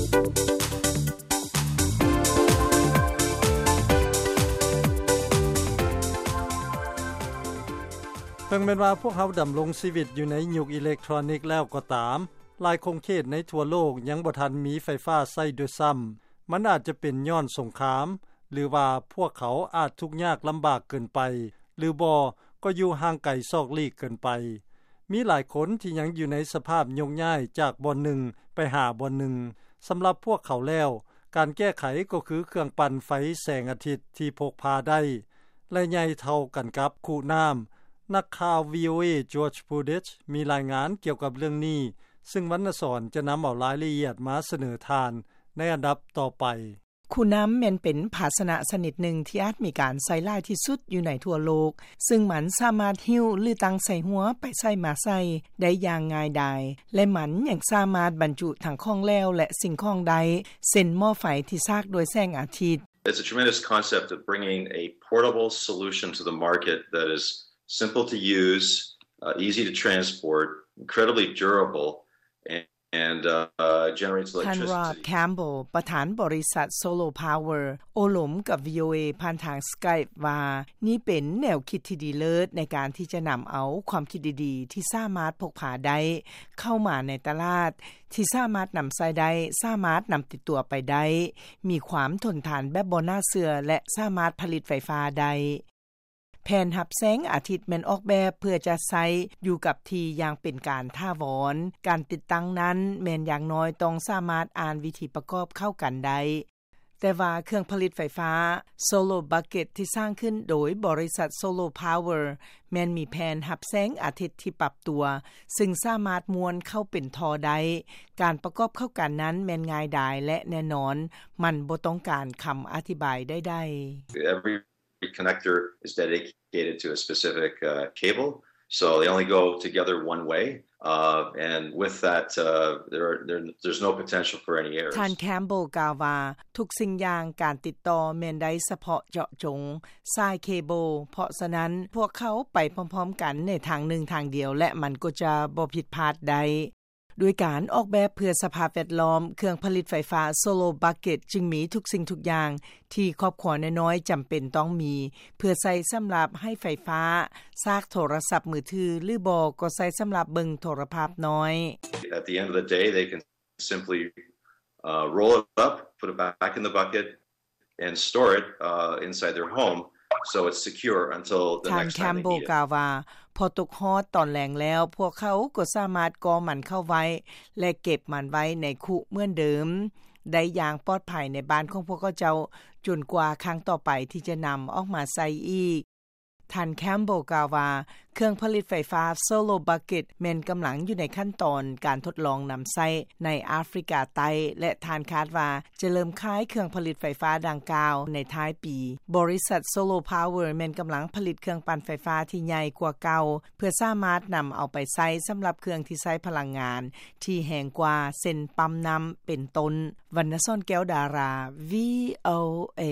ເຖິງແມ່ນວ່າພວກເຮົາດຳລົງຊີວິດຢູ່ໃນຍຸກອີເລັກໂທຣນິກແລ້ວກໍຕາມ, ຫຼາຍຂົງເຂດໃນທົ່ວໂລກຍັງບໍ່ທັນມີໄຟຟ້າໃຊ້ດ້ວຍຊ້ຳ. ມັນອາດຈະເປັນຍ້ອນສົງຄາມ ຫຼືວ່າພວກເຂົາອາດທຸກຍາກລຳບາກເກີນໄປ ຫຼືບໍ່ກໍຢູ່ຫ່າງໄກຊອກຫຼີກເກີນໄປ. ມີຫຼາຍຄົນທີ່ຍັງຢູ່ໃນສະພາບໂຍກຍ້າຍຈາກບ່ອນໜຶ່ງໄປຫາບ່ອນໜຶ່ງ. ສຳລັບພວກເຂົາແລ້ວ, ການແກ້ໄຂກໍຄືເຄື່ອງປັ່ນໄຟແສງອາທິດທີ່ພົກພາໄດ້ ແລະ ໃຫຍ່ເທົ່າກັນກັບຄຸນ້ຳ. ນັກຂ່າວ VOA George Pudich ມີລາຍງານກ່ຽວກັບເລື່ອງນີ້, ຊຶ່ງວັນນະສອນຈະນຳເອົາລາຍລະອຽດມາສະເໜີທ່ານໃນອັນດັບຕໍ່ໄປ. ຄຸນ້ຳແມ່ນເປັນພາຊະນະຊະນິດໜຶ່ງທີ່ອາດມີການໃຊ້ຫຼາຍທີ່ສຸດຢູ່ໃນທົ່ວໂລກ, ຊຶ່ງມັນສາມາດຫິ້ວ ຫຼື ຕັ້ງໃສ່ຫົວໄປໃສມາໃສໄດ້ຢ່າງງ່າຍດາຍ, ແລະ ມັນຍັງສາມາດບັນຈຸທັງຂອງແຫຼວ ແລະ ສິ່ງຂອງໄດ້, ເຊັ່ນ ໝໍ້ໄຟທີ່ສາກດ້ວຍແສງອາທິດ. It's a tremendous concept of bringing a portable solution to the market that is simple to use, uh, easy to transport, incredibly durable, and, and, uh, generates ທ່ານ electricity. Rob Campbell ປະທານບໍລິສັດ Solar Power ໂອ້ລົມກັບ VOA ຜ່ານທາງ Skype ວ່າ ນີ້ເປັນແນວຄິດທີ່ດີເລີດໃນການທີ່ຈະນຳເອົາຄວາມຄິດດີໆທີ່ສາມາດພົກພາໄດ້ເຂົ້າມາໃນຕະຫຼາດ ທີ່ສາມາດນຳໃຊ້ໄດ້, ສາມາດນຳຕິດຕົວໄປໄດ້, ມີຄວາມທົນທານແບບບໍ່ໜ້າເຊື່ອ ແລະ ສາມາດຜະລິດໄຟຟ້າໄດ້. ແຜ່ນຮັບແສງອາທິດແມ່ນອອກແບບເພື່ອຈະໃຊ້ຢູ່ກັບທີ່ຢ່າງເປັນການຖາວອນ. ການຕິດຕັ້ງນັ້ນແມ່ນຢ່າງໜ້ອຍຕ້ອງສາມາດອ່ານວິທີປະກອບເຂົ້າກັນໄດ້. ແຕ່ວ່າເຄື່ອງຜະລິດໄຟຟ້າ Solar Bucket ທີ່ສ້າງຂຶ້ນໂດຍບໍລິສັດ Solar Power ແມ່ນມີແຜ່ນຮັບແສງອາທິດທີ່ປັບຕົວ, ຊຶ່ງສາມາດມ້ວນເຂົ້າເປັນທໍ່ໄດ້. ການປະກອບເຂົ້າກັນນັ້ນແມ່ນງ່າຍດາຍ ແລະ ແນ່ນອນ, ມັນບໍ່ຕ້ອງການຄຳອະທິບາຍໃດໆ. Every connector is dedicated to a specific, uh, cable, so they only go together one way, uh, and with that, uh, there, there, there's no potential for any errors. ທ່ານ Campbell ກ່າວວ່າ ທຸກສິ່ງຢ່າງການຕິດຕໍ່ແມ່ນໄດ້ສະເພາະເຈາະຈົງສາຍເຄເບິ້ນ, ເພາະສະນັ້ນ ພວກເຂົາໄປພ້ອມໆກັນໃນທາງໜຶ່ງທາງດຽວ ແລະ ມັນກໍຈະບໍ່ຜິດພາດໄດ້. ດ້ວຍການອອກແບບເພື່ອສະພາບແວດລ້ອມ, ເຄື່ອງຜະລິດໄຟຟ້າ Solar Bucket ຈຶ່ງມີທຸກສິ່ງທຸກຢ່າງທີ່ຄອບຄົວນ້ອຍໆຈຳເປັນຕ້ອງມີ, ເພື່ອໃຊ້ສຳລັບໃຫ້ໄຟຟ້າ, ຊາກໂທລະສັບມືຖື ຫຼືບໍ່ກໍໃຊ້ສຳລັບເບິ່ງໂທລະພາບນ້ອຍ. At the end of the day, they can simply, uh, roll it up, put it back in the bucket, and store it, uh, inside their home, so it's secure until the next time they need it. ທ່ານ Campbell ກ່າວວ່າ ພໍຕົກຮອດຕອນແລງແລ້ວ, ພວກເຂົາກໍສາມາດກໍ່ມັນເຂົ້າໄວ້ ແລະ ເກັບມັນໄວ້ໃນຄຸເໝືອນເດີມໄດ້ຢ່າງປອດໄພໃນບ້ານຂອງພວກເຂົາເຈົ້າ, ຈົນກວ່າຄັ້ງຕໍ່ໄປທີ່ຈະນຳອອກມາໃຊ້ອີກ. ທ່ານ Campbell ກ່າວວ່າ ເຄື່ອງຜະລິດໄຟຟ້າ Solar Bucket ແມ່ນກຳລັງຢູ່ໃນຂັ້ນຕອນການທົດລອງນຳໃຊ້ໃນອາຟຣິກາໃຕ້ ແລະ ທ່ານຄາດວ່າຈະເລີ່ມຂາຍເຄື່ອງຜະລິດໄຟຟ້າດັ່ງກ່າວໃນທ້າຍປີ. ບໍລິສັດ Solar Power ແມ່ນກຳລັງຜະລິດເຄື່ອງປັ່ນໄຟຟ້າທີ່ໃຫຍ່ກວ່າເກົ່າ ເພື່ອສາມາດນຳເອົາໄປໃຊ້ສຳລັບເຄື່ອງທີ່ໃຊ້ພະລັງງານທີ່ແຮງກວ່າ ເຊັ່ນ ປ້ຳນ້ຳ ເປັນຕົ້ນ. ວັນນະສອນ ແກ້ວດາລາ VOA.